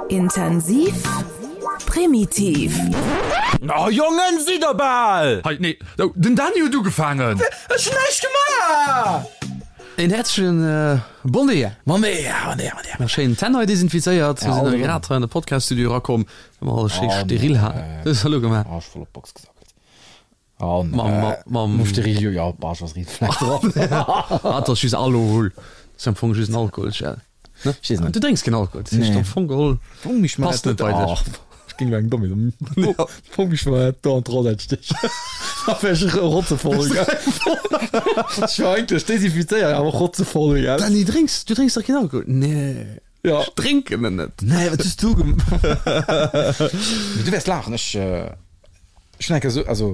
Intensiv, primitiv. Oh Jongen, sidd der bal! Hei, nee, oh, den Dany huet ugefaangen! Ech hunn näischt gemaach! Een häerzlechen Bon Dia! Bon Dia, bon Dia, bon Dia! Mer schéin d'Hänn hei desinfizéiert. Mir sinn grad hei an de Podcast-Studio erakomm, well mer alles schéi steril haten. Wat hues de elo gemaach? Oh, ech voll op d'Box gesackelt. Oh, nee. Mam Steril, jo, jo, bah, ech ass riit Fleck drop. Ah, dat ass just Alohol. Dat ass am Fong just en Alkoholgel. Ne? Ech weess net. Du drénks keen Alkohol, dat heescht am Fong geholl passt net bei dech. Ech géing lo eng domm Idee. Fong mech mal do an d'Rosette stechen. Da wär ech rotzevoll, gell. Ech war eigentlech desinfizéiert, awer rotzevoll, gell. Dany, drénks, du drénks dach keen Alkohol? Nee. Ja. Ech drénken en net. Nee, wat hues du gem. Mee du wäers laachen, ech, ech hunn eng Kéier esou, also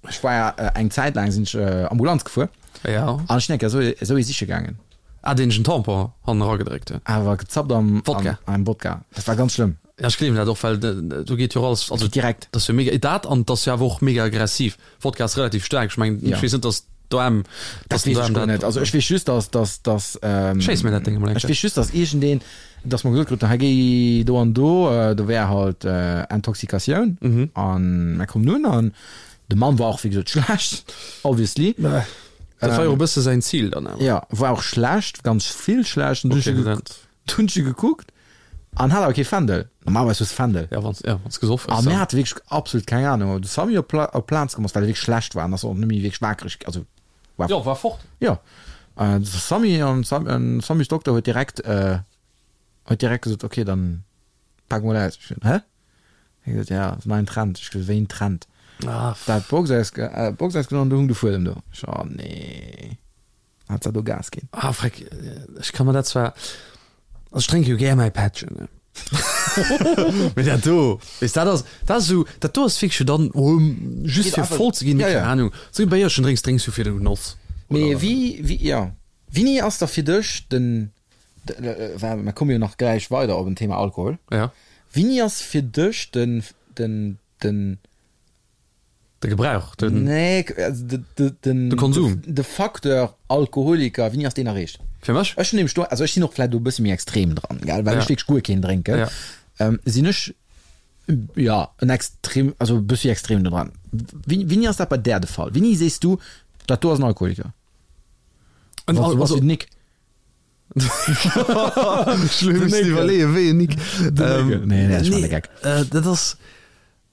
ech war ja eng Zäit laang sinn ech Ambulanz gefuer. Ja. An ech sinn eng Kéier esou, esou ee siche gaangen. Ah, deen ech en Tampon hannen eragedréckt huet. Awer gezappt am Wodka. Am Wodka. Dat war ganz schlëmm. Ja, ech gleewen dat och, well do geet jo och alles, also direkt. Dat ass jo mega, dat an et ass jo awer och mega aggressiv. Wodka ass relativ staark, ech mengen, ech weess net, datt d'OM, Dat weess ech guer net. Also ech weess just, datt, datt, datt, Schéiss mir dat Déng emol eng ech Kéier. weess just, datt iergendeen, datt mer gesot kruten, hei géi do an do, do wär halt Intoxikatioun. An mer kommen un an de Mann war och wéi gesot schlecht, obviously. Dat war jo och e bësse säin Zil dann awer. Jo, war och schlecht, ganz vill schlecht. An du Okay, dat. hunn ech e gekuckt an hat awer kee Fändel. Normalerweis hues de Fändel. Ja, wann ja, wann s gesoff hues. A mir hate wierklech absolut keng Anung. Op de Samy op Pla op Plaz komm ass, well e wierklech schlecht war an ass och net méi wierklech wakereg, also war. Jo, war fort. Jo. De Samy an Sam Samys Dokter huet direkt huet direkt gesot, okay, dann pak mol aus. Ech gesot, hä? Hie gesot, ja, ass neien Trend. Ech gesot, wéi en Trend? Ah, Dat Box aus Box ausgenommen, do hung de Fuedem do. Ech, oh nee. Hat se do Gas ginn. Ah, freck, ech ka mer dat zwar, also ech drénke jo gär mäi Pättchen, ne? Mee dat do, weess, dat ass, dat ass esou, dat do ass wierklech jo dann, oh, just fir voll ze ginn, mee keng Ahnung, esou e Béierchen drénks, drénks du fir de Genoss. Mee wéi, wéi, jo, wéini ass da fir dech den, well mer komme jo nach gläich weider op en Thema Alkohol, Ja. wéini ass fir dech den, den, den. De Gebrauch, den. Nee, also de, de, den. De Konsum. De Facteur Alkoholiker, wéini ass deen erreecht? Fir mech? Ech hunn nämlech do, also ech sinn och vläicht do e bësse méi extrem dran, gell, well Ja. ech wierklech guer keen drénken. Ja. Ähm, sinn ech, ja, en extrem, also e bëssi extrem do dran. Wéini, wéini ass dat bei där de Fall? Wéini sees du, dat do ass en Alkoholiker? En Wann Al, du bass also. wéi den Nick. Ech muss iwwerleeën, wéi en Nick. Ähm, Nee, nee, ech man de Geck. Dat ass.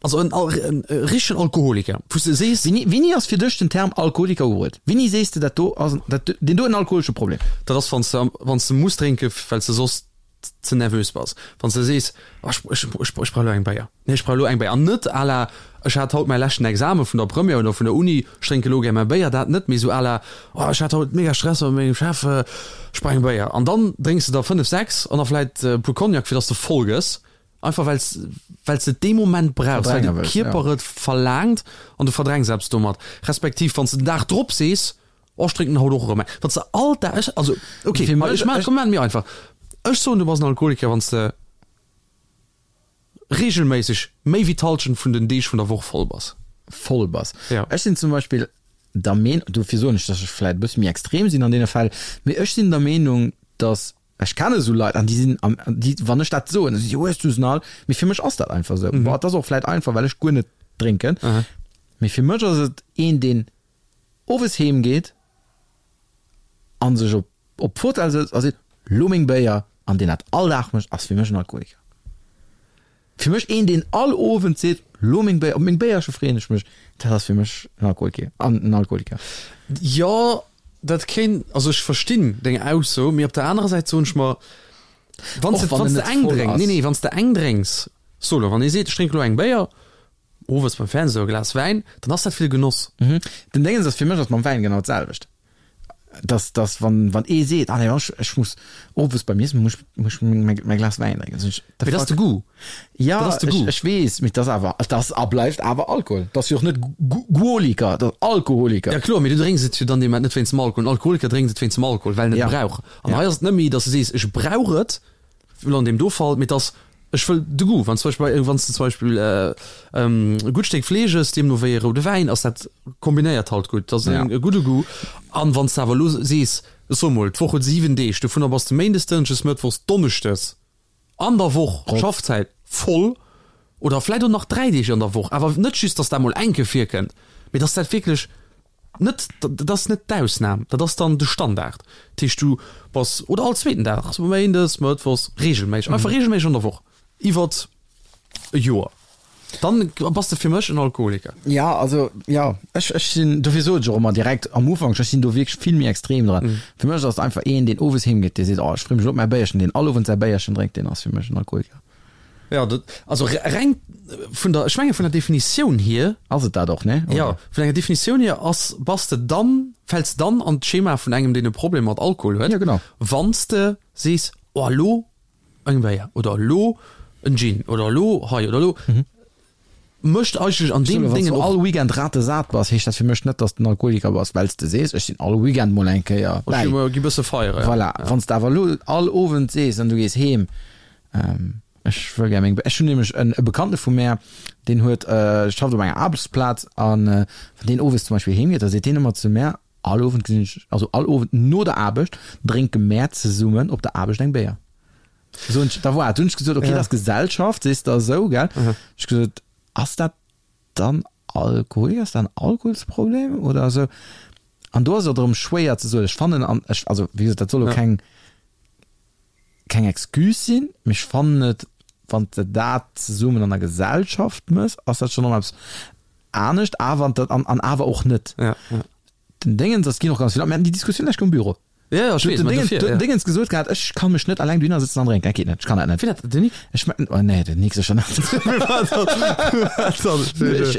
Also en en richtegen Alkoholiker, wou s de sees. Wéini, wéini ass fir dech den Term Alkoholiker ubruet? Wéini sees de, dat do ass en, dat, deen do huet en alkoholesche Problem? Dat ass, wann s de, wann s de muss drénken, well s de soss ze nervös bass. Wann s de sees, oh ech, ech, ech, ech brauch elo eng Béier. Nee, ech brauch elo eng Béier. An net à la, ech hat haut mäi leschten Exame vun der Première oder vun der Uni, ech drénke elo gär mäi Béier. Dat net, mee esou à la, oh ech hat haut mega Stress mat mengem Chef, ech brauch eng Béier. An dann drénks de der 5, 6 an da vläit e puer Cognac, fir datt s de voll gëss. Einfach well s well s de et dee Moment brauchs, well Verdränge de wëlls, Kierper ja. et verlaangt an du verdrängs eppes domat. Respektiv wann s de den Dag drop sees, oh ech drénken haut och erëm eng. Wann s de all Dag, ech, also ok, Fir ma mech, ech maachen, ech. komm maachen et méi einfach, ech soen du bass en Alkoholiker wann s de reegelméisseg méi wéi d'Hallschent vun den Deeg vun der Woch voll bass. Voll bass. Ja. Ech sinn zum Beispill der Meen, dofir soen ech, dass ech vläit e bësse méi extrem sinn an deene Fäll, mee ech sinn der Meenung, dass Ech kenne esou Leit an déi sinn am, déi, wann ech dat soen, da si si, hues du se all? Mee fir mech ass dat einfach esou. Bon, et ass och vläit einfach, well ech guer net drénken. Mee fir mech ass et een, deen owes heem geet a sech op op d'Fotell sëtzt a seet, lo meng Béier, an deen dat all Dag mécht, ass fir mech en Alkoholiker. Fir mech een, deen all Owend seet, lo meng Béier, op meng Béierche freeën ech mech, dat ass fir mech en Alkoholker, en Alkoholiker. Jo, dat kéint, also ech verstinn deng Ausso, mee op der anerer Säit soen ech mer, wann s de, Och wann wann en s de net eng voll drénks, nee, ass. nee, wann s de eng drénks, so lo, wann ee seet, ech drénke lo eng Béier, owes beim Fernseh e Glas Wäin, dann ass dat fir de Genoss. Den Déngens ass, fir mech ass mam Wäin genau d'selwecht. Dass, dass wann, wann ee seet, ah nee, ech, ech muss owes beim Iessen muss, muss ech mäi, mäi Glas Wäin drénken, sinn ech, the Mee dat ass fuck? de Goût. Ja, Dat ass de ech, Goût. ech weess, mee dat ass awer, dat ass a bleift awer Alkohol. Dat ass jo och net Guoliker, dat ass Alkoholiker. Ja kloer, mee du drénks et jo dann deem Moment net wéinst dem Alkohol. En Alkoholiker drénkt et wéinst dem Alkohol, well en et Ja. brauch. An Ja. hei ass et net méi, dass du sees, ech brauch et, Elo an deem do Fall, mee et ass, ech wëll de Goût. Wann zum Beispill, wann s de zum Beispill e gutt Stéck Fleesch ëss, deemno wéi e roude Wäin, ass dat kombinéiert halt gutt, dat ass e gudde Goût. An wann s de awer elo sees, ech soe mol, d'Woch huet 7 Deeg, dovunner bass de méindes, dënschdes, mëttwochs, donneschdes. An der Woch, Schaffzäit voll oder vläit och nach 3 Deeg an der Woch, awer net just, dass dat mol eng Kéier virkënnt, mee dass dat wierklech net, dat ass net d'Ausnam, dat ass dann de Standard. Dat heescht, du bass, oder all zweeten Dag, also méindes, mëttwochs, reegelméisseg, einfach reegelméisseg an der Woch iwwert e Joer, dann bass de fir mech en Alkoholiker. Ja, also jo, ech, ech sinn, dofir sot ech och ëmmer direkt am Ufank, ech sinn do wierklech vill méi extrem dran. Fir mech ass et einfach een, deen owes heem geet, dee seet, oh ech free mech elo op mäi Béierchen, deen all Owend säi Béierchen drénkt, deen ass fir mech en Alkoholiker. Ja, dat, also reng vun der, ech menge vun der Definitioun hier. Ass et dat och, ne? Ja, vun enger Definitioun hier ass, bass de dann, fäls dann an d'Schema vun engem, deen e Problem mat Alkohol huet. Ja, genau. Wann s de sees, oh elo eng Béier oder elo en Gin oder elo hei oder elo, mécht eigentlech an deem Déngen och. All Weekend ratesat bass, heescht dat fir mech net, dass de en Alkoholiker bass, well s de sees, ech sinn all Weekend mol eng Kéier bäi. Ech gi bësse feieren, ja. Voilà. Wann s de awer elo all Owend sees an du gees heem, Ech wëll gär meng, ech hunn nämlech en e Bekannte vu mär, deen huet, schafft op enger Aarbechtsplaz an wann deen owes zum Beispill heem geet, da seet deen ëmmer zu mär, all Owend gesinn ech, also all Owend no der Aarbecht drénke mär zesummen op der Aarbecht eng Béier. Soen ech, da voilà, du hunn ech gesot, okay, dat ass Gesellschaft, sees de esou, gell? Ech gesot, ass dat dann Alkoholiker, ass dat en Alkoholsproblem oder esou? An do ass et erëm schwéier ze soen. Ech fannen an ech, also wéi gesot, dat soll elo keng, keng Excuse sinn, mee ech fannen et, wann s de dat zesummen an der Gesellschaft mëss, ass dat schonn erëm eppes anescht, awer an, an awer och net. Ja, ja. Den Déngens ass, ginn och ganz vill, mir haten déi Diskussioun lech um Büro. Ja, ja, ech weess, mä dofir, ja. Dingens gesot gehat, ech kann mech net alleng dohinner sëtzen an drénken, dat geet net, ech kann dat net. Wien dat, den Nick? Ech me, oh nee, den Nick sécher net. Ech,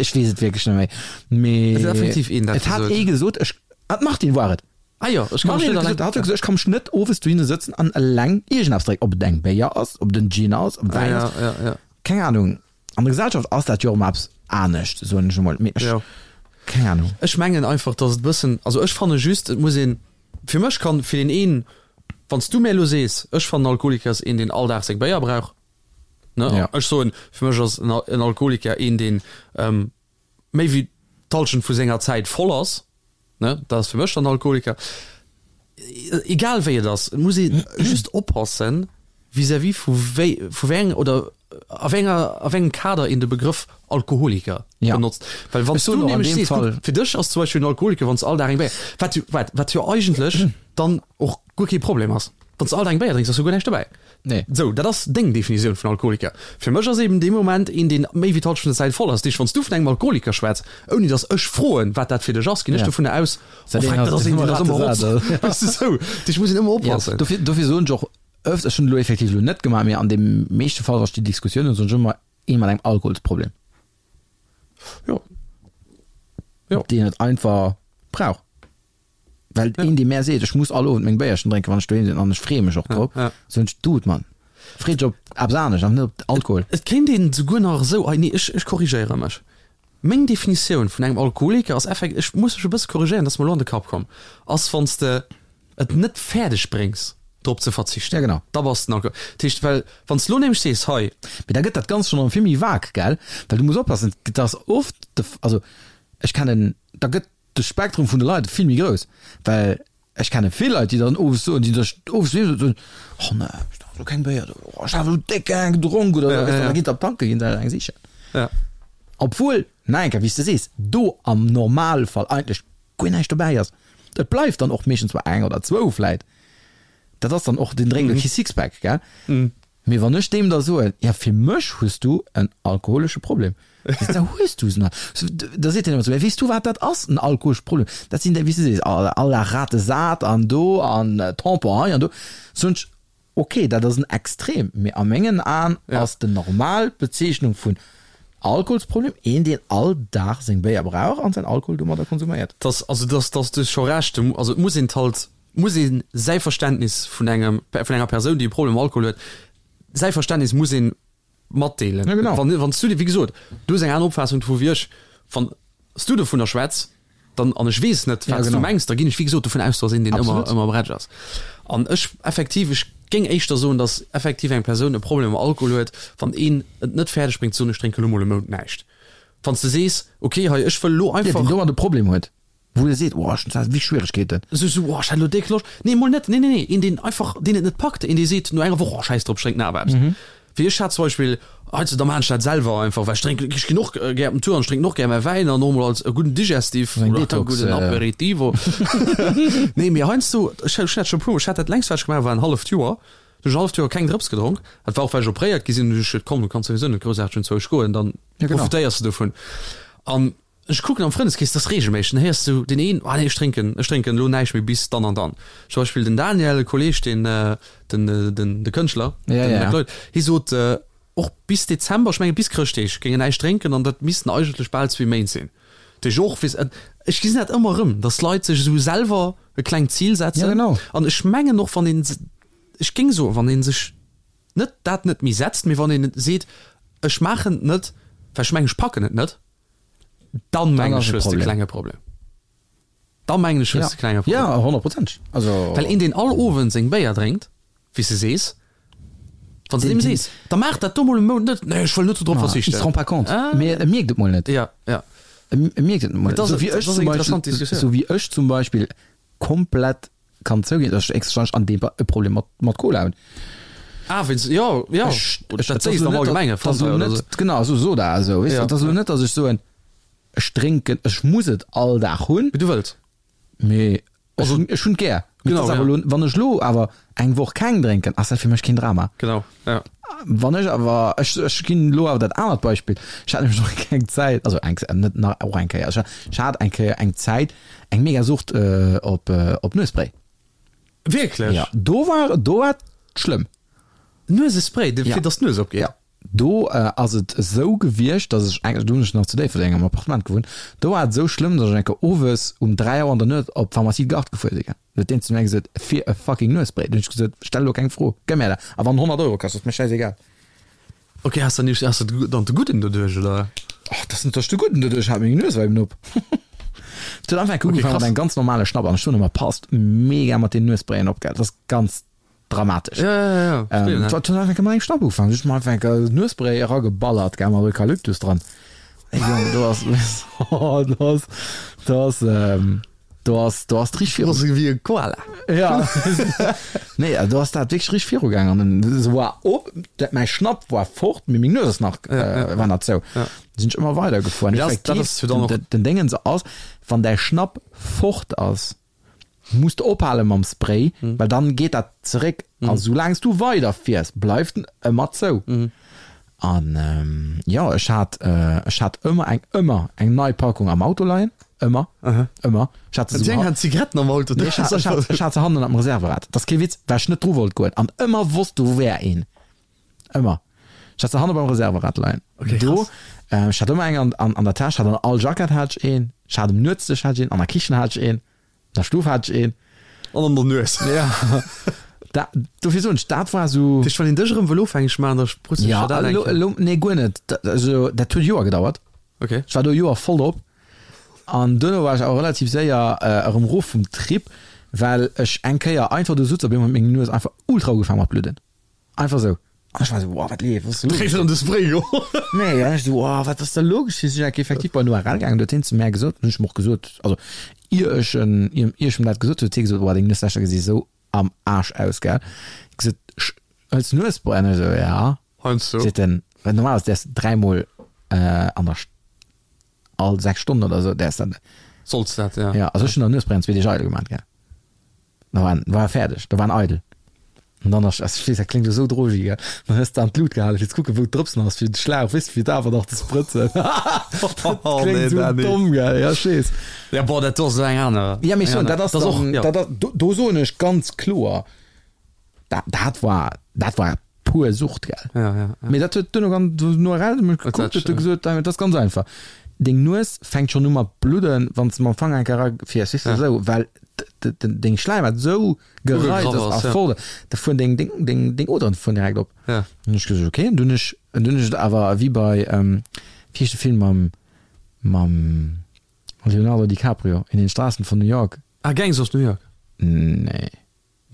ech weess et wierklech net méi. Mee Et ass effektiv een, dat et hat ee gesot, ech, ah, d'Martine war et. Ah jo, ech kann mech net alleng. Hat gesot, ech kann mech net owes dohinner sëtzen an eleng iergendeppes drénken, ob et eng Béier ass, ob et en Gin ass, ob et Wäin ass. Ja, ja, ja. Keng Ahnung. An der Gesellschaft ass dat jo och ëmmer eppes anescht, soen ech emol. Mee ech, Jo. keng Ahnung. Ech mengen einfach, dass et e bëssen, also ech fanne just, et muss een, fir mech kann, fir deen een, wann s du mär elo sees, ech fannen Alkoholiker ass een, deen all Dag seng Béier brauch, ne, Ja. ech soen, fir mech ass en en Alkoholiker een, deen méi wéi d'Halschent vu senger Zäit voll ass, Ne, dat ass fir mech dann Alkoholiker. Egal wéi et ass, et muss ee just oppassen vis-à-vis vu wéi, vu wéi eng oder a wéi enger, a wéi engem Kader een de Begrëff Alkoholiker Ja. benotzt. Well wann Ech s du soen och an nämlech deem sees, Fall- guck, fir dech ass zum Beispill en Alkoholiker, wann s all Dag eng Béier, wat jo, wat, wat jo eigentlech dann och guer kee Problem ass. Wann s all Dag eng Béier drénks, ass jo guer näischt dobäi. Nee. Sou, dat ass deng Definitioun vun Alkoholiker. Fir mech ass eben dee Moment een, deen méi wéi d'Halschent vun der Zäit voll ass. Dat heescht, wann s du vun engem Alkoholiker schwätz, ouni datt ech froen, wat dat fir dech ass, ginn ech Ja. dovunner aus, Dat oh een freck, dat ass ass een, deen ass ëmmer rotz. ratesat. Weess de, sou. Dat heescht, muss een ëmmer Ja, oppassen. dofir, dofir soen ech och öfters, ech hunn et elo effektiv elo net gemaach, mee an deem meeschte Fall, wa ech déi Diskussioun hunn, soen ech ëmmer, ee mat engem Alkoholsproblem. Jo. Jo. Deen et einfach brauch. Well een, dee mär seet, ech muss all Owend meng Béierchen drénken, wann ech doheem sinn, an ech freeë mech och drop, soen ech, Dude, Mann, free dech op eppes anescht an net op Alkohol. Et kéint een souguer nach esou, ei nee, ech, ech korrigéiere mech, meng Definitioun vun engem Alkoholiker ass effekt, ech muss mech e bësse korrigéieren, dat ass mer elo an de Kapp komm, ass wann s de et net fäerdeg bréngs drop ze verzichten, Ja, genau. da bass de en Alkohol. Dat heescht, well wann s de elo nämlech sees, hei. Mee da gëtt dat Ganzt schonn erëm vill méi vague, gell? Well du muss oppassen, et ass oft de, also ech kennen, da gëtt de Spektrum vun de Leit vill méi grouss, well ech kenne vill Leit, déi dann owes soen, déi sech owes doheem soen, oh ne, ech drank elo keng Béier, oh ech hat elo déck eng gedronk oder esou, weess de, an da ginn se op d'Tanke ginn se eng sichen. Ja. Obwuel, nach eng Kéier, wéi s de sees, do am Normalfall eigentlech guer näischt dobäi ass. Et bleift dann och meeschtens bei eng oder zwou vläit. Dat ass dann och, deen drénkt elo kee Sixpack, gell? Mee wann ech deem da soen, ja fir mech hues du en alkoholesche Problem, da hues du se nach. Da seet hien ëmmer zu mir, weess du wat dat ass, en alkoholesche Problem? Dat sinn déi, wéi s du sees, all Dag Rate sat an do an Tampon hei an do. Soen ech, ok, dat ass en Extrem, mee a mengen Aen ass de normal Bezeechnung vun Alkoholsproblem een, deen all Dag seng Béier brauch an säin Alkohol domadder konsuméiert. Dass, also dass, dass du hues scho Recht, also et muss een halt muss ee säi Verständnis vun engem, vun enger Persoun, déi e Problem mam Alkohol huet, säi Verständnis muss ee matdeelen. Ja, genau. Wann, wann s du, wéi gesot, du hues eng aner Opfaassung dovu wéi ech, wann s du dovunner schwätz, dann, an ech weess net, wat Ja, s du genau. mengs, da ginn ech, wéi gesot, dovun aus, dass een deen ëmmer, Absolut. ëmmer bretsch ass. An ech, effektiv, ech géing éischter soen, dass effektiv eng Persoun e Problem mam Alkohol huet, wann een et net fäerdeg bréngt ze soen, ech drénke lo mol e Mount näischt. Wann s de sees, okay, hei, ech wëll lo Ja, deen einfach. domat e Problem huet. Wou e seet, oh, ech hunn zwar wéi Schwieregkeeten. Esou, esou, oh, ech hat elo déck Loscht. Nee, mol net, nee, nee, nee, een, deen einfach, deen et net packt, een, dee seet no enger Woch, oh, schäiss drop, ech drénken awer eppes. Wéi ech hat zum Beispill, heiansdo, da maachen ech dat selwer einfach, well ech drénken, ech ginn och gär op den Tour an ech drénken och gär mäi Wäin an och mol als e gudden Digestif Eng oder e Detox, gudden Aperitivo. Nee, mee heiansdo, ech hunn dat scho e puermol, ech hat dat längst, wat ech gemaach hu war en halleft Joer, du hunn ech en halleft Joer keng Drëps gedronk. Dat war och, well ech opréiert gi sinn, hunn ech gesot, komm, du kanns souwisou net groussaarteg unzwousch goen, dann Ja, genau. profitéiers de dovun. An Ech kucken am Frëndeskrees, dat ass regelméisseg, dann héiers du deen een, ah nee, ech drénken, ech drénken elo näischt méi bis dann an dann. Zum Beispill den Daniel, e Kolleeg, deen, den, den, de Kënschtler, Ja, den ja. McLeod, hie sot och bis Dezember, ech menge bis Chrëschtdeeg, géing en näischt drénken an dat missten eigentlech bal zwee Méint sinn. Dat heescht och, weess, ech gesinn dat ëmmer erëm, datt Leit sech esou selwer e klengt Zil setzen. Ja, genau. An ech mengen och, wann een, ech géing soen, wann ee sech net dat net méi setzt, mee wann een seet, ech maachen et net, well ech mengen, ech packen et net, Dann mengen ech hues de klenge Problem. Dann mengen ech hues de klenge Problem. Ja, honnertprozenteg. Also. Well een deen all Owend seng Béier drénkt, wéi s de sees, wann s de deem sees, da maach dat do mol e Mount net, nee ech wëll net dodrop verzichten. Il se rend pas compte. Mee e mierkt et mol net. Ja, ja. E mierkt et mol net. Dat ass eng interessant Diskussioun. Sou wéi ech zum Beispill komplett kann zouginn, dass ech héchstwahrscheinlech an deem Fall e Problem mat, mat Cola hunn. Ah, wéinst, jo, jo, Ech, dat sees de am Allgemenge, Fanta oder sou. Genau, sou Soda, esou, weess de. Et ass elo net, dass ech soen, ech drénken, ech muss et all Dag hunn. Mee du wëlls. Mee ech hunn, ech hunn et gär. Mee et Genau, ass awer ja. elo, wann ech elo awer eng Woch keng drénken, ass dat fir mech keen Drama. Genau, ja. Wann ech awer, ech, ech ginn elo awer dat anert Beispill, ech hat nämlech och eng Zäit, also eng, net nach, och eng Kéier, ech hat, ech hat eng Kéier eng Zäit eng mega Sucht op, op Nuesspray. Wierklech? Ja, do war, do war et schlëmm. Nuesespray, fir Ja. dass d'Nues opgeet? Ja. Do ass et esou gewiescht, dass ech eng, do hunn ech nach zu Déifferdeng am Appartement gewunnt, do war et esou schlëmm, dass ech eng Kéier owes um 3 Auer an der Nuet op d'Pharmacie Gard gefuer si. Huet deen zu mär gesot, fir e fucking Nuesspray. Dunn hunn ech gesot, stell elo keng Fro, gëmm mär dat. A wann 100 Euro kascht, ass mir schäisegal. Ok, has de has de dann de Gudden doduerch, oder? Och, dat ass net, dass ech de Gudden doduerch hat, meng Nues war eben op. Et huet einfach enke Ok, ugefaangen mat krass. engem ganz normale Schnapp an ech soen ëmmer, passt mega mat den Nuessprayen op, gell, dat ass ganz dramatesch. Ja, ja, ja, verstehe, Ähm, ne? et huet einfach enke mat engem Schnapp ugefaangen, ech hu mer einfach enke Nuesspray erageballert, gell, mat Eukalyptus dran. Ey Jong, do ass, do ass, do ass, ähm, Do ass, do ass d'rich viru. Ass wéi e Koala. Ja. Nee, do ass dat wierklech rich viru gaang an dann se war op, dat mäi Schnapp war fort, mee meng Nues ass nach, äh, war nach zou. Ja. Sinn ech ëmmer weider gefuer. Mee dat, dat ass jo dann och. Den, den Déngens ass, wann däi Schnapp fort ass, muss de ophale mam Spray, well dann geet dat zeréck. A soulaang s du weider fiers, bleift en ëmmer zou. An jo, ech hat, ech hat ëmmer eng, ëmmer eng nei Packung am Auto leien. Ëmmer, ëmmer. Ech hat se Déi eng hat Zigaretten am Auto. Nee, ech hat, ech hat, ech hat se hannen am Reserverad. Dat ass kee Witz, well ech net dru wollt goen an ëmmer wosst, do wär een. Ëmmer. Ech hat se hanne beim Reserverad leien. Okay, Do, krass. ech hat ëmmer eng an, an, an der Täsch, hat an all Jackett hat ech een, ech hat um Nuetsdësch hat ech een, an der Kichen hat ech een. Der Stuf hat ech een. An an der Nues. Ja. Da, dofir soen ech, dat war sou. Dat heescht, wann een dech erëm wëll ofhängeg maachen, da sprutzt Ja, sech dat elo, eng Kéier. elo, nee, guer net. Dat, also, dat huet Joer gedauert. Okay. Ech war do Joer voll drop. An duerno war ech awer relativ séier erëm erof vum Trip, well ech eng Kéier einfach do sutz, op eemol huet meng Nues einfach ultra ugefaangen mat bludden. Einfach sou. An ech war sou, wow, wat leeft, wat ass do Dréit an de Spray geholl. Nee, an ech sou, wow, wat ass da lo geschitt? Sinn ech effektiv bei den ORL gaangen, do huet hien zu mär gesot, hunn ech em och gesot, also ier ech en, ier ech em dat gesot hunn, huet hie gesot, wow, deng Nueslächer gesi sou am Aarsch aus, gell. Ech gesot, hëls du Nuesspray? An ech sou, ja. Heiansdo. Seet en, well normalerweis däerfs de dräimol an der, all 6 Stonnen oder sou däerfs dat. Solls dat, ja. Ja, also ech hunn der Nuesspray an zwee Deeg eidel gemaat, gell. Da war war e fäerdeg, da war en eidel. An dann ass, ech weess, dat kléngt elo sou drogi, gell, dann hues de an d'Lut gehalen, fir ze kucken, wou d'Drëpsen ass, fir de Schlauch, weess de, fir et awer nach ze sprëtzen. Dat kléngt sou domm, gell, ja, ech weess. Ja, boah, dat do ass elo eng aner. Ja, mee ech soen, dat ass och, dann, ja. dat ass, do, do soen ech ganz kloer, dat, dat war, dat war pur Sucht, gell. Ja, ja, ja. Mee dat huet duerno ganz, no RL mech gekuckt, huet e gesot, dat ass ganz einfach. Deng Nues fänkt schonn u mat bludden, wann s de mam Fanger eng Kéier erafiers, weess de, esou, well deng Schläimhaut esou gereizt ass a voll, da fueren deng, deng, deng, deng Oderen fueren direkt op. Ja. Dann hunn ech gesot, okay, an dunn hunn ech, an dunn hunn ech et awer wéi bei, wéi heescht de Film mam, mam Leonardo DiCaprio, In den Straßen von New York? Ah, Gangs of New York. Nee.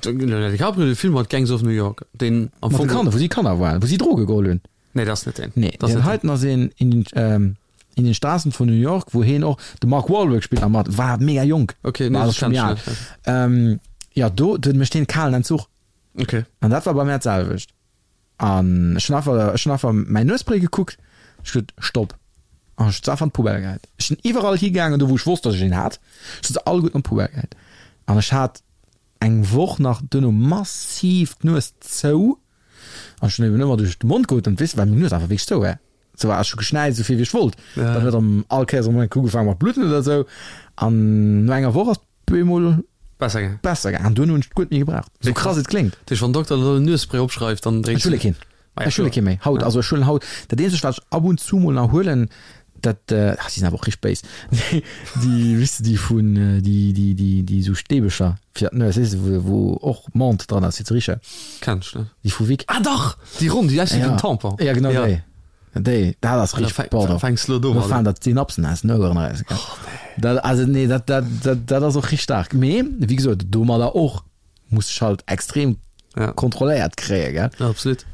Leonardo DiCaprio, de Film mat Gangs of New York, deen am Mat de Fong. Kanner, wou si Kanner waren, wou si Droge geholl hunn. Nee, dat ass net deen. Nee, Dat ass deen net deen. heiten ass een in den, ähm. In den Straßen von New York, wou heen och, de Mark Wahlberg spillt nach mat, war mega jonk. Okay, nee, War dat scho méi kenn al. ech net. Ähm, jo, do, do mécht heen kalen Entzuch. Okay. An dat war bei mär d'selwecht. An ech hunn einfach, ech hunn einfach mäin Nuespray gekuckt, ech gesot, Stopp. An ech hunn se einfach an d'Poubelle gehäit. Ech sinn iwwerall higaangen, do wou ech wosst, datt ech een hat, ech hunn se alleguerten an d'Poubelle gehäit. An ech hat eng Woch nach duerno massiv d'Nues zou. An ech hunn eben ëmmer duerch de Mond geotemt, weess de, well meng Nues einfach wierklech zou war. Sou war ech hu geschnäizt esou vill wéi ech wollt. Ja. Dann huet erëm all Kéiers erëm eng ugefaangen mat bludden oder esou. An no enger Woch ass et bemol Besser gaangen. besser gaangen. An duerno hunn ech et guer net méi gebraucht. Sou krass et kléngt. Dat heescht, wann den Dokter elo en Nuesspray opschreift, dann Ech drénks huele du. keen. Ah ja, Ech huele kloer. kee méi. Haut, Ja. also ech huelen haut, dat eenzegt wat ech ab und zu mol nach huelen, dat, ah, déi sinn awer och richteg béis, déi, déi, weess de, déi vun, déi, déi, déi, déi sou Stäbecher fir d'Nues, weess de, wou, wou och Menthe dran ass fir ze richen. Kenn ech net. Déi vu Vic. Ah dach! Déi ronn, déi aussi wéi Ja. en Tampon. Ja, genau Ja. déi. Déi, dat ass Ah, da richteg, fäng, pardon. fänks lo Do domadder. faalen der d'Synapsen aus den Oueren eraus, gell. Oh, nee. Dat, also nee, dat, dat, dat, dat ass och richteg staark. Mee, wéi gesot, domadder och muss ech halt extrem Ja. kontrolléiert kréien, gell. Ja, absolut.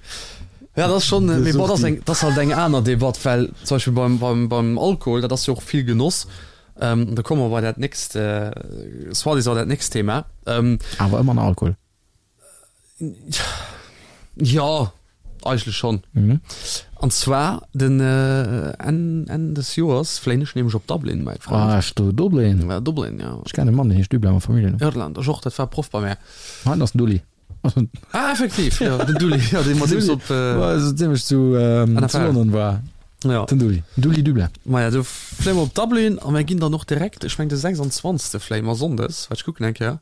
Ja, dat ass schon, De mee bon, dat ass Suchti. eng, dat ass halt eng aner Debatt, well zum Beispill beim, beim, beim Alkohol, dat ass jo och vill Genoss. Ähm, da komme mer bei dat nächst, äh, soi-disant dat nächst Thema. Ähm, Awer ëmmer nach Alkohol. Ja, eigentlech schonn. Mhm. An zwar den äh, Enn, Enn des Joers fléien ech nämlech op Dublin, mäi Frënd. Ah, ech do Dublin. Ja, Dublin, ja. Ech kennen e Mann, deen heescht Dublin am Familljennumm. Irland, ech och, dat war Proff bei mär. Heiten ass den Dulli. Ah, effektiv, ja, den Dulli, ja, dee mat deem s op äh, War so ziemlech zu, ähm, zu NFL. London war. Ja. Den Dulli. Dulli Dublin. Maja, do fléie mer op Dublin a mir ginn dann och direkt, ech meng de 26. fléie mer Sonndes, waart ech kucken eng Kéier.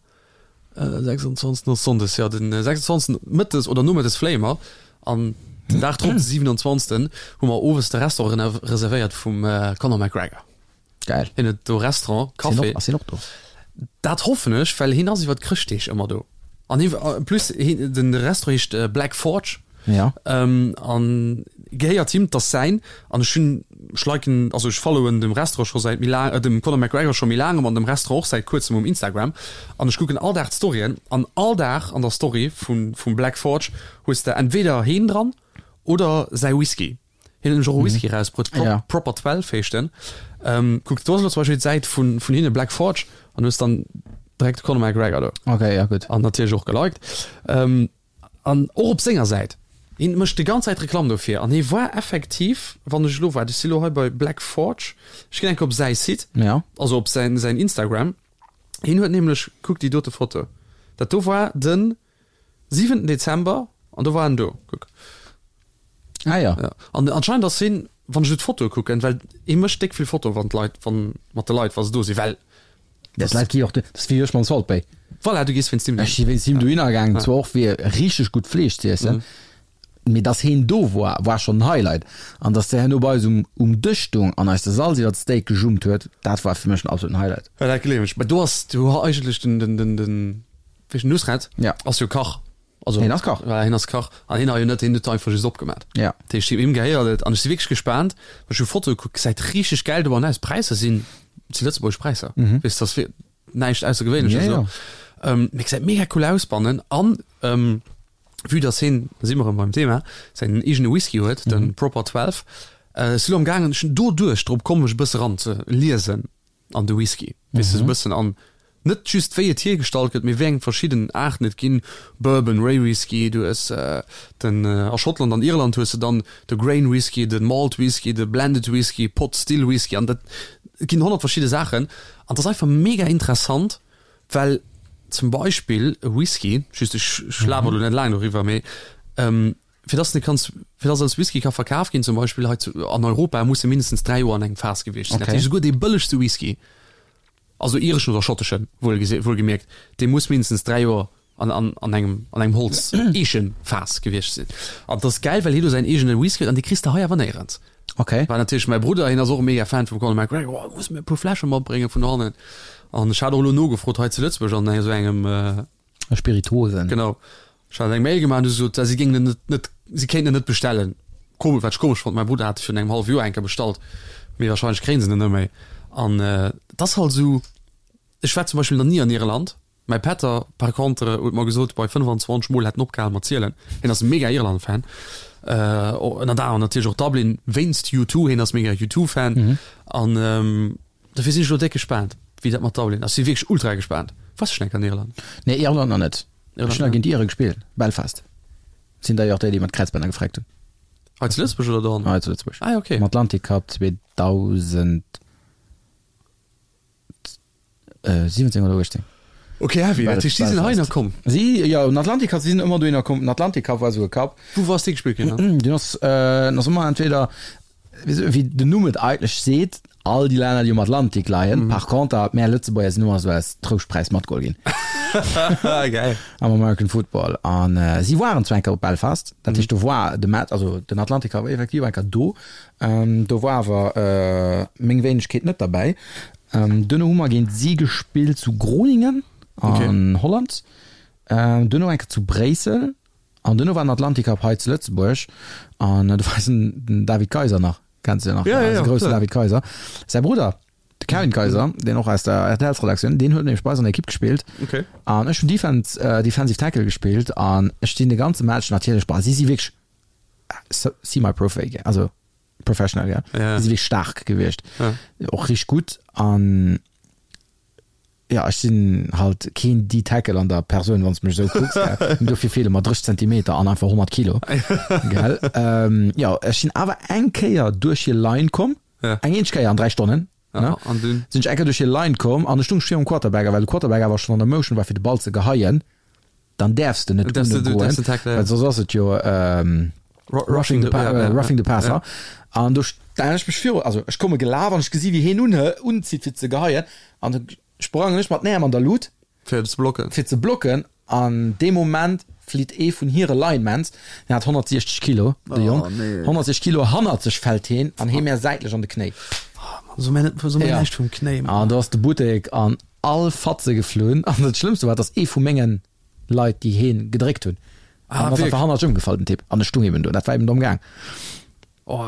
26 ass Sonndes, jo, den 26 mëttes oder nomëttes fléie mer an den Dag drop, de 27, hu mer owes de Restaurant reservéiert vum Conor McGregor. Geil. Hien huet do Restaurant, Café. Ass hien och do? Dat hoffen ech, well hien ass iwwer d'Chrëschtdeeg ëmmer do. An hie, en plus, hien, den Restaurant heescht Black Forge. Ja. Ähm, an gehéiert him, 't ass säin. An ech hunn, ech liken, also ech followen dem Restaurant scho säit méi laang, äh, dem Conor McGregor scho méi laangem an dem Restaurant och säit kuerzem um Instagram. An ech kucken all Dag d'Storyen an all Dag an der Story vun, vum Black Forge hues de entweder heen dran oder säi Whisky. Hien huet nämlech och e Whisky erausbruet, Pro, Ja. Proper 12 heescht en. Ähm, kuck, do ass elo zum Beispill d'Säit vun, vun hinne, Black Forge, an hues dann direkt de Conor McGregor do. Okay, ja gutt. An natierlech och geliked. Ähm, An och op senger Säit. Hien mécht déi ganz Zäit Reklamm dofir. An hie war effektiv, wann ech elo, waart, ech si elo hei bei Black Forge, ech ginn eng Kéier op säi Site, Ja. also op säin, säin Instagram. Hien huet nämlech, kuck déi dote Foto, dat do war de siwenten Dezember an do war en do, kuck. Ah ja. Ja. An anscheinend ass hien, wann ech elo d'Fotoe kucken, well hie mécht déck vill Fotoe wann d'Leit, wann, mat de Leit, wa se do sinn, well Dat Leit gi och, dat ass wéi ech mam Salt Bae. Voilà, du gees wéinst him Ech si wéinst him dohinner gaangen, zwar och fir richteg gutt Fleesch ze iessen, mee dass heen do war, war schonn en Highlight. An dass de herno bei eis um um Dësch stoung an eis de Salz iwwer d'Steak gejummt huet, dat war fir mech den absoluten Highlight. Ja, dat gleewen ech. Mä do ass du eigentlech den, den, den, den, wéi heescht den, Nusret? Ja. Ass jo Kach. Also, Hien ass Kach. Ja, hien ass Kach. An hien hat jo net, hien huet einfach just opgemat. Ja. Dat heescht, him gehéiert et. An ech si wierklech gespaant, well ech hu Fotoe gekuckt, gesäit richteg gäil dobannen aus. D'Präisser sinn, si lëtzebuergesch Präisser. Mhm. Weess, dass wir näischt Aussergewéinleches Ja, esou. ja. Ähm, mee gesäit mega cool aus bannen. An, ähm, vue dass hien, da si mer erëm beim Thema, säin eegene Whisky huet, Mhm. den Proper 12, äh, ech si lo am gaangen, ech hunn doduerch drop komm, mech e bësse ran ze liesen. an de Whisky, weess de, esou e bëssen an net just wéi et hiergestallt gëtt, mee wéi eng verschidden Aarten et ginn, Bourbon, Rye Whisky, du hues den a Schottland an Irland hues de dann de Grain Whisky, de Malt Whisky, de Blended Whisky, Pot Still Whisky an dat et ginn 100 verschidde Saachen an et ass einfach mega interessant, well zum Beispill e Whisky, just ech ech laber elo net laang doriwwer, mee Fir dass en kanns, fir dass als Whisky ka verkaf ginn, zum Beispill hei zu, an Europa, muss e mindestens 3 Joer an engem Faass gewiescht sinn. Dat Okay. heescht, esouguer dee bëllegste Whisky, also ireschen oder schotteschen, wuel wuelgemierkt, dee muss mindestens 3 Joer an, an, an engem, an engem Holz, Eechenfaass gewiescht sinn. An dat ass gäil, well hie do säin eegene Whisky huet an dee kriss de hei awer néierens. Okay. War natierlech mäi Brudder, hien ass och e mega Fan vum Conor McGregor, oh, muss mir e puer Fläsche matbrénge vun hannen. An ech hat och elo nogefrot hei zu Lëtzebuerg an esou engem, Spirituosen. Genau. Ech hat eng Mail gemaach an du sot, si géingen en net, net, si kéinten en net bestellen. Komesch, wat ech komesch fonnt, mäi Brudder hat e virun engem hallwe Joer eng Kéier bestallt, mee wahrscheinlech kréien se en net méi. An et ass halt esou, ech war zum Beispill nach ni an Irland, mäi Pätter par contre huet mer gesot, bei 25 Mol hätt en opgehal mat zielen, hien ass e mega Irland-Fan. Ënnert anerem natierlech och Dublin wéinst U2, hien ass mega U2-Fan an dofir sinn ech elo déck gespaant, wéi dat mat Dublin ass. Si wierklech ultra gespaant. Waars du schonn eng Kéier an Irland? Nee, Irland nach net. Ech hunn nach géint d'Iere gespillt, Belfast. Sinn d'ailleurs déi, déi mer d'Kräizbänner gefreckt hunn. Hei zu Lëtzebuerg oder dohannen? Hei zu Lëtzebuerg. Ah, okay. Am Atlantic Cup 2017 oder 18. Okay, heavy. Dat heescht, si sinn heihinner komm? Si, jo, den Atlantic Cup, si sinn ëmmer dohinner komm. Den Atlantic Cup war esou e Cup. Wou ass dee gespillt ginn dann? Deen ass, den ass ëmmer entweder, wéi den Numm et eigentlech seet, all déi Länner, déi um Atlantik leien. Par conter, mär Lëtzebuerger sinn ëmmer esou als Trouschtpräis matgeholl ginn. Geil. Am American Football. An si waren zwar eng Kéier op Belfast, dat heescht, do war de Match, also den Atlantic Cup war effektiv eng Kéier do. Do war awer meng Wéinegkeet net derbäi. Duerno hu mer géint si gespillt zu Groningen an Holland, duerno eng Kéier zu Bréissel an duerno war den Atlantic Cup hei zu Lëtzebuerg an do war eisen den David Kayser nach, kenns de jo nach, eise groussen David Kayser, säi Brudder de Kevin Kayser, deen och aus der RTL-Redaktioun, deen huet nämlech bei eis an der Ekipp gespillt an ech hunn Defense, Defensive Tackle gespillt an ech sinn de ganze Match natierlech, bah si si wierklech semi-profi, also professional, ja. Ja. Si wierklech staark gewiescht. Ja. Och richteg gutt an ja, ech sinn halt keen D-Tackle an der Persoun, wann s de mech esou kucks, gell. Dofir feele mer 30 Zentimeter an einfach 100 Kilo, gell. Ähm, ja, ech sinn awer eng Kéier duerch hir Line komm, Ja. eng eenzeg Kéier an 3 Stonnen, Ja, ne? an dunn? Sinn ech eng Kéier duerch hir Line komm an ech stung virum Quarterback, a well de Quarterback awer schonn an der Motion war fir de Ball ze geheien, dann däerfs de net goen, well soss ass et jo Roughing the, roughing the Passer. An do stellen ech mech viru, also ech komme gelaf an ech gesi wéi hien unzitt fir ze geheien an da sprangen ech mat den Äerm an der Lut fir ze blocken, fir ze blocken an dee Moment flitt ee vun hire Linemans, deen hat 160 Kilo, de Jong, 160 Kilo hannert sech fält heen an hee mär säitlech an de Knéi. So mär näischt vum Knéi. An do ass de Buttek an all Fatze geflunn an dat Schlëmmste war, dass ee vu mengen Leit, déi heen gedréckt hunn, Ah, an ass einfach hannert ëmgefall, den Typ, an ech stung eben do, dat war eben domm gaang. Oh,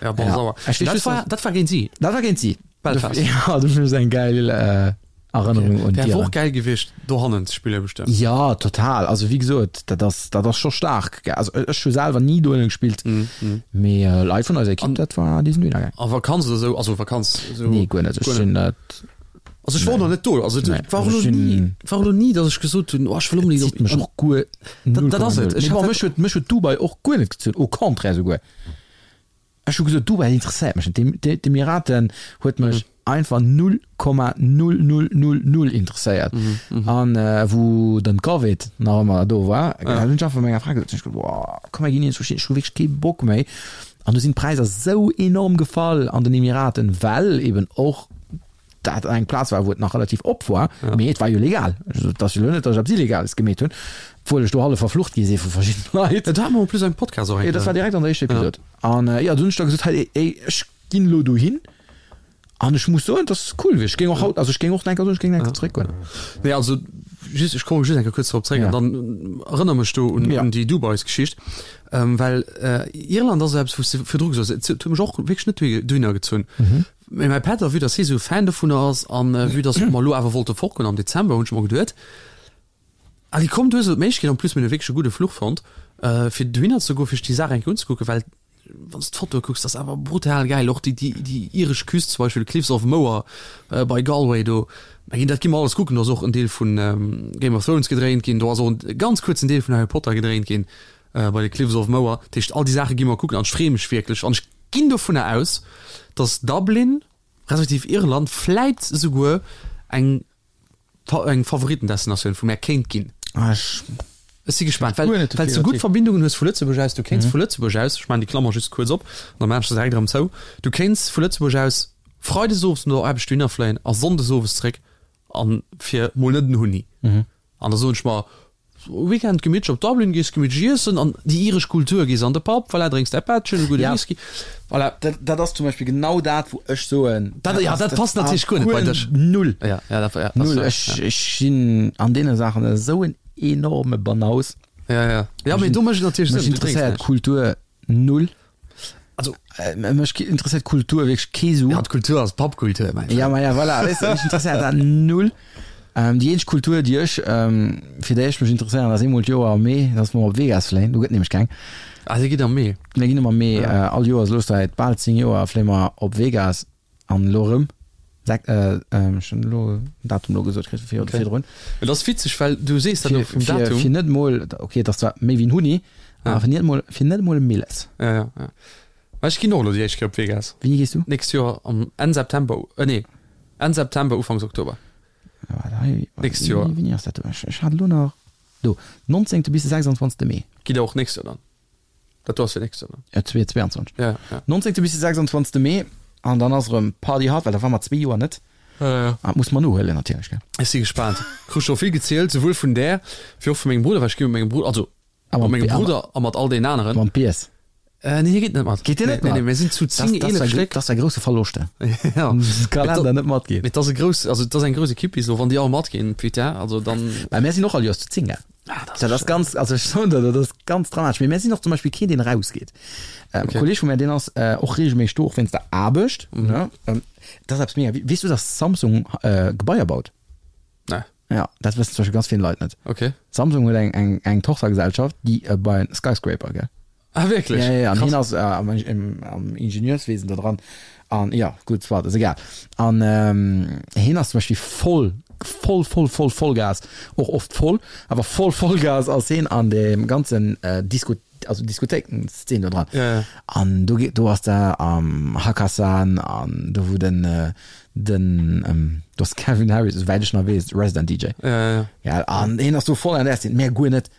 ja, bon, Ja. sauer. Ech weess Dat just, war, dass- dat war géint si. Dat war géint si. Belfast. Ja, dat ass eng geil äh, Erënnerung un Wär d'Iren. och geil gewiescht, dohannen ze spillen, bestëmmt. Ja, total. Also wéi gesot, dat ass, dat ass scho staark. gell. Also ech hu selwer ni dohinne gespillt, mee äh, Leit vun eiser Ekipp, dat war, déi sinn dohinner gaang. A Vakanz oder sou, also Vakanz, sou. Nee, guer net. Ech sinn dat. Also ech war och nach net do. Also et Nee, war och also lo ech sinn- ni, war och lo ni, datt ech gesot hunn, oh ech wëll onbedéngt Zitt mech och guer Dat- dat ass et. Ech Ech hat bon, mech huet mech huet Dubai och guer net gezunn, au contraire souguer. Ech hu gesot, Dubai interesséiert mech net. D'Em- d'E- D'Emiraten huet mech einfach 0,0000 interesséiert. An äh, wou den Covid nach ëmmer do war, ja. hunn ech einfach menger Fra gesot, ech gesot, boah, komm mir ginn iergendwou hin, ech hu wierklech kee Bock méi. An du sinn d'Präisser sou enorm gefall an den Emiraten, well eben och dat eng Plaz war, wou et nach relativ op war, mee et war jo legal. Also, et ass jo elo net, datt ech eppes Illegales gemeet hunn, obwuel ech do hallef verflucht gi si vu verschiddene Leit. Dat hate mer en plus am Podcast och eng Jo, dat war Kéier. direkt an der éischter Episod. An jo, du hunn ech da gesot, hei, ey, ech ginn elo dohin an ech muss soen, et ass cool gewiescht. Ech géing och haut, also ech géing och nach eng Kéier soen, ech géing nach eng Kéier zeréckgoen. Nee, also just, ech komme just eng Kéier kuerz drop zeréck Ja. an dann erënner mech do un, Ja. un déi Dubais-Geschicht, well Irland ass eppes, wou s de virdru gesot hues, et huet mech och wierklech net dohinner gezunn. Mee mäi Pätter, vue dass hie sou Fan dovunner ass an vue dass mer elo awer wollte fortgoen am Dezember, hunn ech mer geduet, Allez komm, du hues elo d'Méiglechkeet, en plus mir hunn e wierklech e gudde Fluch fonnt, fir dohinner ze goen, fir sech déi Saach eng Kéier unzekucken, well wann s de d'Fotoe kucks, dat ass awer brutal gäil. Och déi, déi, déi iresch Küst zum Beispill, Cliffs of Moher bei Galway do, mä ginn, dat gi mer alles kucken. Do ass och en Deel vun Game of Thrones gedréint ginn, do ass och en ganz kuerzen Deel vun Harry Potter gedréint ginn bei de Cliffs of Moher. Dat heescht, all déi Saache gi mer kucken an ech freeë mech wierklech an ech ginn dovunner aus, dass Dublin, respektiv Irland, vläit esouguer eng eng Favoritendestinatioun vu mär kéint ginn. Ah, ech Ech si gespaant, well well s de gutt Verbindungen hues vu Lëtzebuerg aus. Du kéints vu Lëtzebuerg aus, ech maachen déi Klammer just kuerz op an da maachen ech se direkt erëm zou, du kéints vu Lëtzebuerg aus freides owes no der Aarbecht dohinner fléien a sonndes owes zréck an fir mol net en Hunni. An da soen ech mer, Weekend gemittlech op Dublin, gees gemittlech iessen an déi iresch Kultur, gees an de Pub, voilà, drénks däi Pättchen, e gudde Ja. Whisky, voilà. Dat, dat ass zum Beispill genau dat, wou ech soen, Dat, ja, dat passt natierlech guer net bei dech. Null. Ja, ja, dat, ja, dat Null. ass, Ech, ech sinn an deene Saachen esou en enorme Banaus. ja, ja. Ja, mee do mécht et natierlech Mech Sënn, du drénks interesséiert näischt. Kultur null. Also, Mech interesséiert Kultur wierklech kee Su. ja, d'Kultur ass Pubkultur, mäin Ja, Frënd. ma ja, voilà, weess de, mech interesséiert dat null. Ähm, déi eenzeg Kultur, déi ech, ähm, fir déi ech mech interesséieren, ass eemol d'Joer am Mee, dass mer op Vegas fléien. Do gëtt nämlech keng. Ah, dir gitt am Mee? Mir ginn ëmmer am Mee, äh, all Joers elo säit bal 10 Joer fléie mer op Vegas an elo erëm. Sek, äh, ähm, ech hunn elo en Datum elo gesot kritt, fir Okay. virdrun. Et ass witzeg, well du sees dat elo Fir, vum fir, Datum. fir net mol, okay, et ass zwar méi wéi en Huni, Ja. awer fir net mol, fir net mol e Milles. Ja, ja, ja. Well ech ginn och elo déi éischt Kéier op Vegas. Wéini gees du? Nächst Joer am Enn September, äh, nee, Enn September, Ufanks Oktober. Waart, hei, Nächst Joer. Wéini ass dat do? Ech, ech hat elo nach, do, 19. bis de 26. Mee. Gitt der och nächst Joer dann? Dat do ass fir nächst Joer dann? Ja, 22. Ja, ja. 19. bis de 26. Mee an dann ass erëm Party hard, well da war mer zwee Joer net. Ja, ja. An dat muss mer nohuelen natierlech, gell? Ech si gespaant. Krut scho vill gezielt, souwuel vun där, wéi och vu mengem Brudder, well ech gi mat mengem Brudder, also A mat mengem mam, Brudder a mat all deenen aneren. mam Piers. Äh, nee, hie geet net mat. Geet deen net Nee, mat? nee, mir sinn zu 10, 11 Stéck. Dat ass e grousse Verloscht. Ja. Kalender net matgeet. Mee et ass e grouss, also et ass eng grouss Ekipp bis elo, wann déi all matginn, putain, also dann. Well mär sinn och all Joers zu 10, gell? Ah, dat ass Dat ass schön. ganz, also ech soen der, dat ass ganz dramatesch. Mee mär sinn och zum Beispill keen, deen erausgeet. Ähm, Okay. E Kolleg vu mär, deen ass äh, och regelméisseg do, och wéinst der Aarbecht. Mhm. Ne? Ähm, dat ass eppes mega. Weess du, dass Samsung äh, Gebaier baut? Nee. Ja, dat wëssen zum Beispill ganz vill Leit net. Okay. Samsung huet eng, eng, eng Tochtergesellschaft, déi äh, bei Skyscraper, gell? Ah, wierklech? Ja, ja, ja. An Krass. hien ass äh, am, im, am Ingenieurswesen da dran. An ja, gutt, soit, ass egal. An ähm, hien ass zum Beispill voll, voll, voll, voll, Vollgas, och oft voll, awer voll Vollgas ass hien an dem ganzen äh, Disco, also Diskothéiken-Szene do dran. Ja, ja. An do, do ass der am Hakkasan an do wou den, äh, den, ähm, do ass Calvin Harris, esouwäit ech nach weess, Resident DJ. Ja, ja, ja. Ja, an hien ass do voll an der Szene, mär guer net,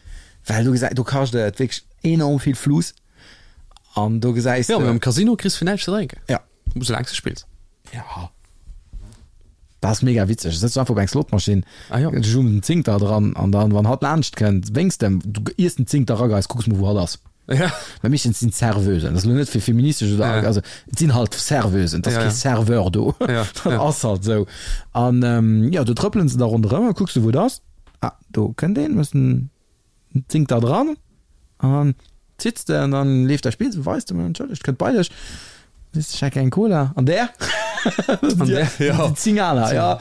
well do gesäit, do kascht et wierklech enorm vill Fluss an do gesäis Ja, de. mee am Casino kriss fir näischt ze drénken. Ja. Soulaang s de spills. Ja. Dat ass mega witzeg. Du sëtzt einfach op eng Slotmaschinn, Ah jo. du jumps en Zéngter dran an dann, wann hatt laanscht kënnt, wénks de em, du iers den Zéngter erageis, kucks mol wou hatt ass. Ja. Well meeschtens sinn d'Serveusen, dat ass elo net fir feministesch oder, Ja. also et sinn halt Serveusen, et ass Ja, kee ja. Serveur do. Ja, Dat ja. ass halt esou. An ähm, jo, do trëppelen se da ronderëm a kucks du wou et ass. Ah, do kënnt een, hues den Zéngter dran an dann zitts de an dann leeft däi Spill, weist de, entschëllegt, kënnt bei dech, sees ech hätt gär eng Cola an där? An där, ja. Déi 10 aner, ja.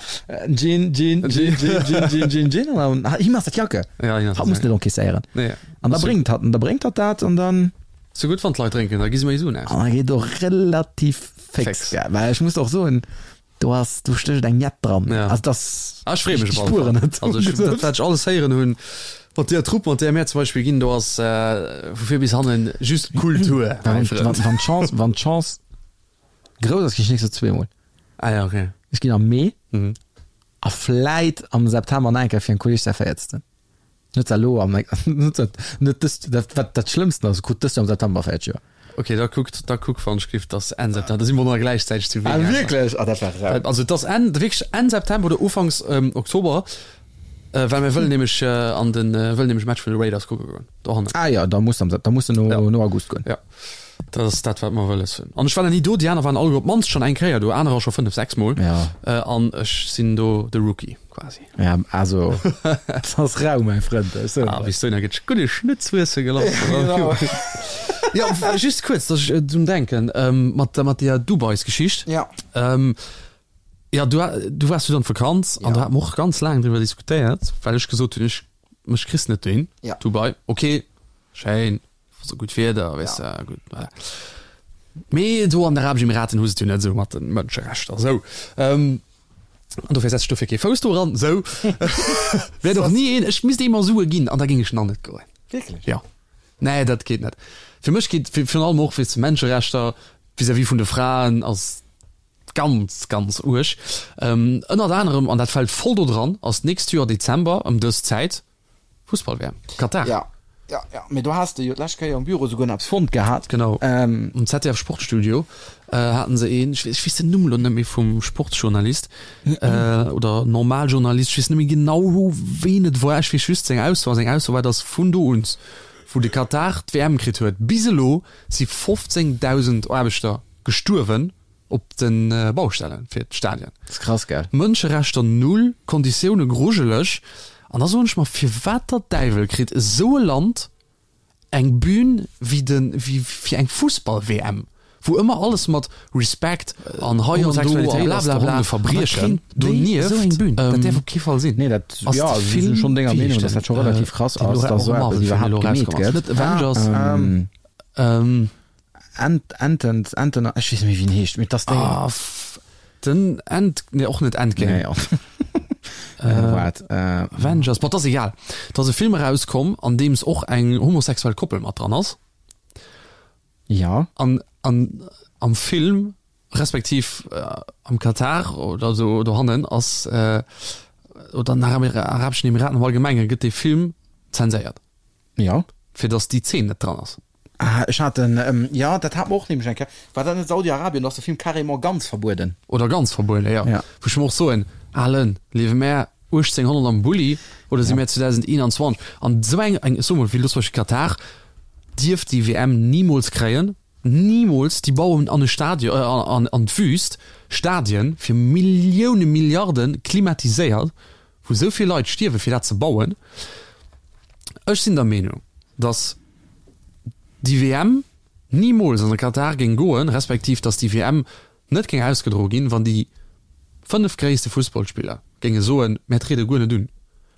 Gin, Gin, Gin, Gin, Gin, Gin, Gin, Gin an dann, him ass dat Jacke. Ja, him ass Hatt dat muss net encaisséieren. Nee. An da bréngt hatt, an da bréngt hatt dat an dann. Sou gutt, wann d'Leit drénken, da gi se méi Suen aus. An da geet och relativ fix, Fix. gell, well ech muss och soen, Do ass, do stécht eng Jett dran. Ja. Also das, Ah, ech freeë mech ich op alle spueren Fall. net. Also ech, dat, wat ech alles héieren hunn, mat deer Trupp, mat deer mär zum Beispill ginn, do ass äh, vu vir bis hannen just Kultur, Wann, mäi wann, Frënd. wann d'Chance, wann d'Chance grouss ass, ginn ech nächstes Joer zweemol. Ah ja, okay. Ech ginn am Mee Mhm. a vläit am September nach eng Kéier fir en Kolleg säi véierzten. Net elo am, net dat, net dëst, dat, wat dat Schlëmmsten ass, krut dëst Joer am September 40 Joer. Ok, da kuckt, da kuck wann ech giff, dass Enn September, da si mer nach gläichzäiteg zu Ah, Vegas. wierklech? Ah, dat war rau. Also et ass Enn, wierklech Enn September oder Ufanks ähm, Oktober, äh, well mir wëllen nämlech äh, an den, äh, wëllen nämlech Match vun de Raiders kucke goen, dohannen. Ah ja, da muss am Sep, da muss de no, Ja. no August goen. Ja, dat ass dat, wat mer wëlles hunn. An ech war nach ni do, déi aner waren alleguer op d'mannst schonn eng Kéier do, anerer scho fënnef, sechs Mol. Ja. Äh, an ech sinn do de Rookie quasi. Ja, also, dat ass rau, mäi Frënd. Ech soen Ah, der. bis dohinner gëtt gudde Schnëtz wuesse gelass. Genau. Ja, just kuerz, dass ech äh, drun denken, ähm, mat, mat der Dubais-Geschicht. Ja. Ähm, ja, du, du waars du an d'Vakanz an Ja. do hat mer och ganz laang driwwer diskutéiert, well ech gesot hunn, ech, mech kriss net dohin. Ja. Dubai, okay, schéin, sou gutt Wieder, weess de, gutt, voilà. Mee do an den Arabesch Emiraten hu se et jo net esou mat de Mënscherechter, sou. Ähm, an dofir setz ech dofir kee Fouss do eran, sou. Wäert och ni een, ech misst ee mer Sue ginn an da géing ech nach net goen. Wierklech? Jo. Nee, dat geet net. Fir mech geet virun allem och, weess de, Menscherechter vis-à-vis vun de Fraen ass ganz, ganz uerg. Ähm, ënnert anerem, an dat fält voll do dran, ass d'nächst Joer Dezember ëm dës Zäit Fussball-WM, Katar. Ja, ja, ja. Mee do has de jo d'lescht Kéier um Büro souguer nach eppes fonnt gehat. Genau. Ähm. Am ZDF Sportstudio haten se een, ech weess, ech weess den Numm elo net méi vum Sportsjournalist oder Normaljournalist, ech weess net méi genau ween et war, ech weess just seng Ausso, a seng Ausso war, datt vun do un, wou de Katar d'WM kritt huet, bis elo si 15.000 Aarbechter gestuerwen op de Baustellen fir d'Stadien. Dat ass krass, gell? Mënscherechter null, Konditioune grujeleg. An da soen ech mer, firwat der Däiwel kritt esou e Land eng Bühn wéi de wéi fir eng Fussball-WM, Wou ëmmer alles mat Respect an hei an do a blablabla Verbriechen donieft, esou eng Bühn, dat däerf op kee Fall sinn. Nee, dat, jo, also ech sinn schonn denger Meenung, dass dat scho relativ krass ass, dass esou eppes iwwerhaapt gemeet gëtt. Net Avengers, Ent, Enten, Enten, ech weess net méi wéi en heescht, mee dass déi. Ah, den End, nee och net Endgame. Nee, och. Waart, Avengers, bon, 't ass egal. 't ass e Film erauskomm, an deems och eng homosexuell Koppel mat dran ass. Ja. An, an am Film, respektiv am Katar oder esou dohannen ass, oder an den Arabeschen Emiraten am Allgemenge gëtt dee Film zenséiert. Ja. Fir datt déi Zeen net dran ass. Ah, ech hat en, jo, dat hat mer och nämlech eng Kéier, war dat net Saudi-Arabien, do ass de Film carrément ganz verbueden. Oder ganz verbueden, jo. Ja. Wou ech mer och soen, Alen, liewe mär 1800 am Bulli oder si mär 2021? An esou eng, eng, ech soe mol, wéi elo zum Beispill Katar, dierf déi WM nimools kréien, nimools! Déi bauen an e Stadion, an, an d'Wüst Stadien fir Millioune, Milliarden, klimatiséiert, wou esou vill Leit stierwen, fir dat ze bauen. Ech sinn der Meenung, datt déi WM nimools an de Katar géing goen, respektiv datt déi WM net géing ausgedroe ginn, wann déi 5 gréisste Fussballspiller géinge soen, mär triede guer net un.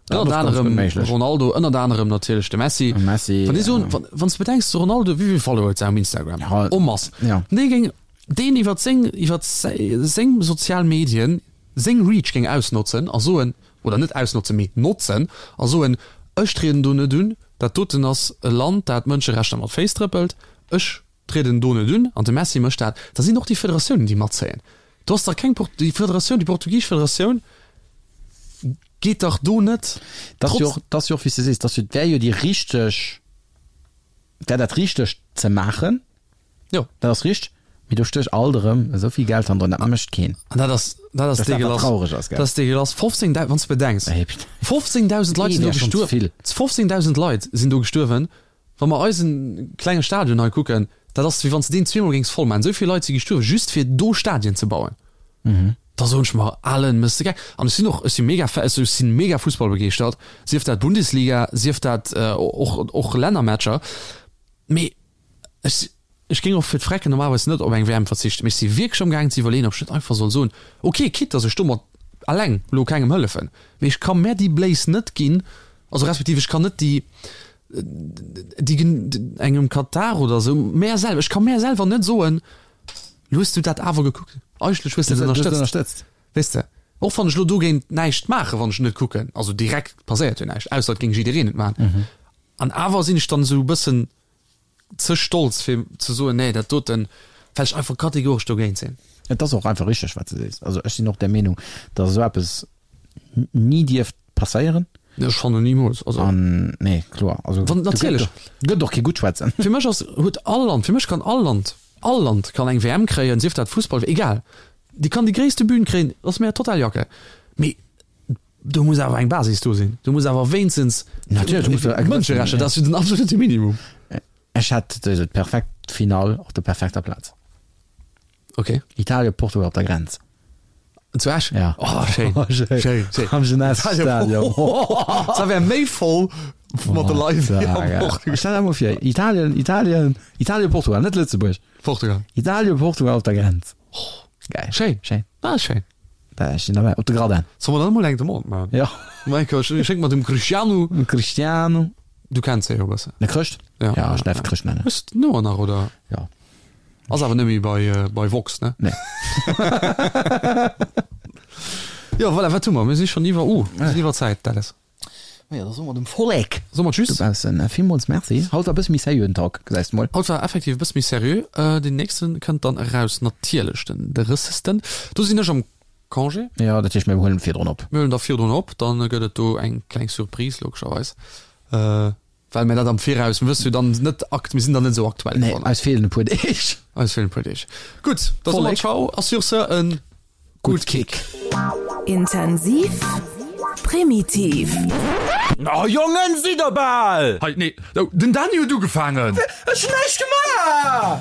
Ënnert anerem Ronaldo, ënnert anerem natierlech de Messi. Wann déi soen, wann s de bedenks, de Ronaldo, wéi vill Follower huet se um Instagram? En masse. Dee géing deen iwwer seng, iwwer seng sozial Medien seng Reach géing ausnotzen a soen, oder net ausnotzen, mee notzen a soen, ech trieden do net un, dat doten ass e Land, dat d'Mënscherechter mat Féiss trëppelt, ech trieden do net un an de Messi mécht dat, da sinn och déi Federatiounen, déi matzéien. Do ass dach keng, déi Federatioun, déi portugisesch Federatioun geet dach do net. Dat ass jo och, dat ass jo och, wéi s de sees, dat ass jo, wär jo déi richteg, wär dat Richtegt ze maachen. Jo. Dat ass richteg, mee do stécht alt erëm esou vill Geld hannendrun, dat mécht keen. An dat ass, dat ass Dat ass dat, wat deegelass. traureg ass, gell? Dat ass deegelass. 15.000, wann s de bedenks, 15.000 Leit sinn do Ee wär schonn ze gestuerwen. vill. 15.000 Leit sinn do gestuerwen. Wa mer eise klenge Stadion hei kucken, dat ass wéi wann s de deen zweemol géings voll maachen. Esou vill Leit si gestuerwen, just fir do Stadien ze bauen. Da soen ech mer, Alen, méchs de gek? An ech sinn och, ech si mega Fa, ech si mega fussballbegeeschtert, sief dat Bundesliga, sief dat och, och Lännermatcher. Mee Ech, ech géing och fir d'Frecken normalerweis net op eng WM verzichten, mee ech si wierklech amgaangen ze iwwerleeën, ob ech net einfach soll soen, ok, quitte dass ech domat alleng elo kengem hëllefen, mee ech ka mär déi Bléis net ginn, also respektiv ech kann net déi, déi engem Katar oder esou, mär selwer, ech ka mär selwer net soen, lo hues du dat awer gekuckt, eigentlech hues de et ënnerstëtzt, weess de, och wann ech elo dogéint näischt maachen, wann ech net kucken, also direkt passéiert jo näischt, ausser et géing jiddereen et maachen, an awer sinn ech dann esou e bëssen ze stolz fir ze soen, nee dat doten, well ech einfach kategoresch dogéint sinn. Et ass och einfach richteg wat de sees. Also ech sinn och der Meenung, datt esou eppes ni dierft passéieren. Ech fannen nimools. Also An nee kloer, also wann natierlech gëtt och kee gutt schwätzen. Fir mech ass huet all Land, fir mech kann all Land, all Land kann eng WM kréien, sief dat Fussball, egal, déi kann déi gréisste Bühn kréien, ass mir total Jacke, mee Do muss awer eng Basis do sinn. Do muss awer wéinstens Natierlech muss do eng Mënscherechter, dat ass jo den absolute Minimum. Ech hätt souwisou d'perfekt Finall op der perfekter Plaz. Ok. Italien, Portugal op der Grenz. Zu Esch? Ja. Oh, schéin. Schéin. Schéin, schéin. Am Jeunesse Stadion. Da wär méi voll mat de Leit wéi am Portugal. Stell der mol vir, Italien, Italien, Italien, Portugal, net Lëtzebuerg. Portugal. Italien, Portugal op der Grenz. Geil. Schéin. Schéin. Ah, schéin. Da ech sinn derbäi. Op de Gradin. Soll mer dann emol eng Demande maachen? Ja. Michael, ech schénk mer dem Cristiano. Dem Cristiano. Du kenns hie jo e bëssen. De Chrëscht? Ja. Ja, ech däerf Chrëscht nennen. Hues de d'Nummer nach, oder? Ja. Ass awer net méi bei, bei Vox, ne? Nee. Jo, voilà, wat hu mer? Mir si schonn iwwer, uh, mir sinn iwwer Zäit, Dallas. Majo, da soe mer dem Vollek Soe mer Tschüss. dobaussen villmools Merci. Haut war e bësse méi seriöen Talk, gesäis de mol. Haut war effektiv e bësse méi seriö. Deen nächste kënnt dann eraus natierlech den drëssegsten. Do sinn ech am Congé. Jo, dat heescht mir huelen virdrun op. Mir huelen da virdrun op, dann gëtt et do eng kleng Surprise logescherweis, well mir dat am Viraus, mir wësse jo dann net akt, mir sinn dann net esou aktuell. Nee, eis feelen e puer Deeg. Eis feelen e puer Deeg. Gutt, da soe mer Ciao a sur ce en Gutt Kick. Intensiv, primitiv. Oh Jongen, sidd der bal! Hei, nee, den Dany huet ugefaangen! Ech hunn näischt gemaach!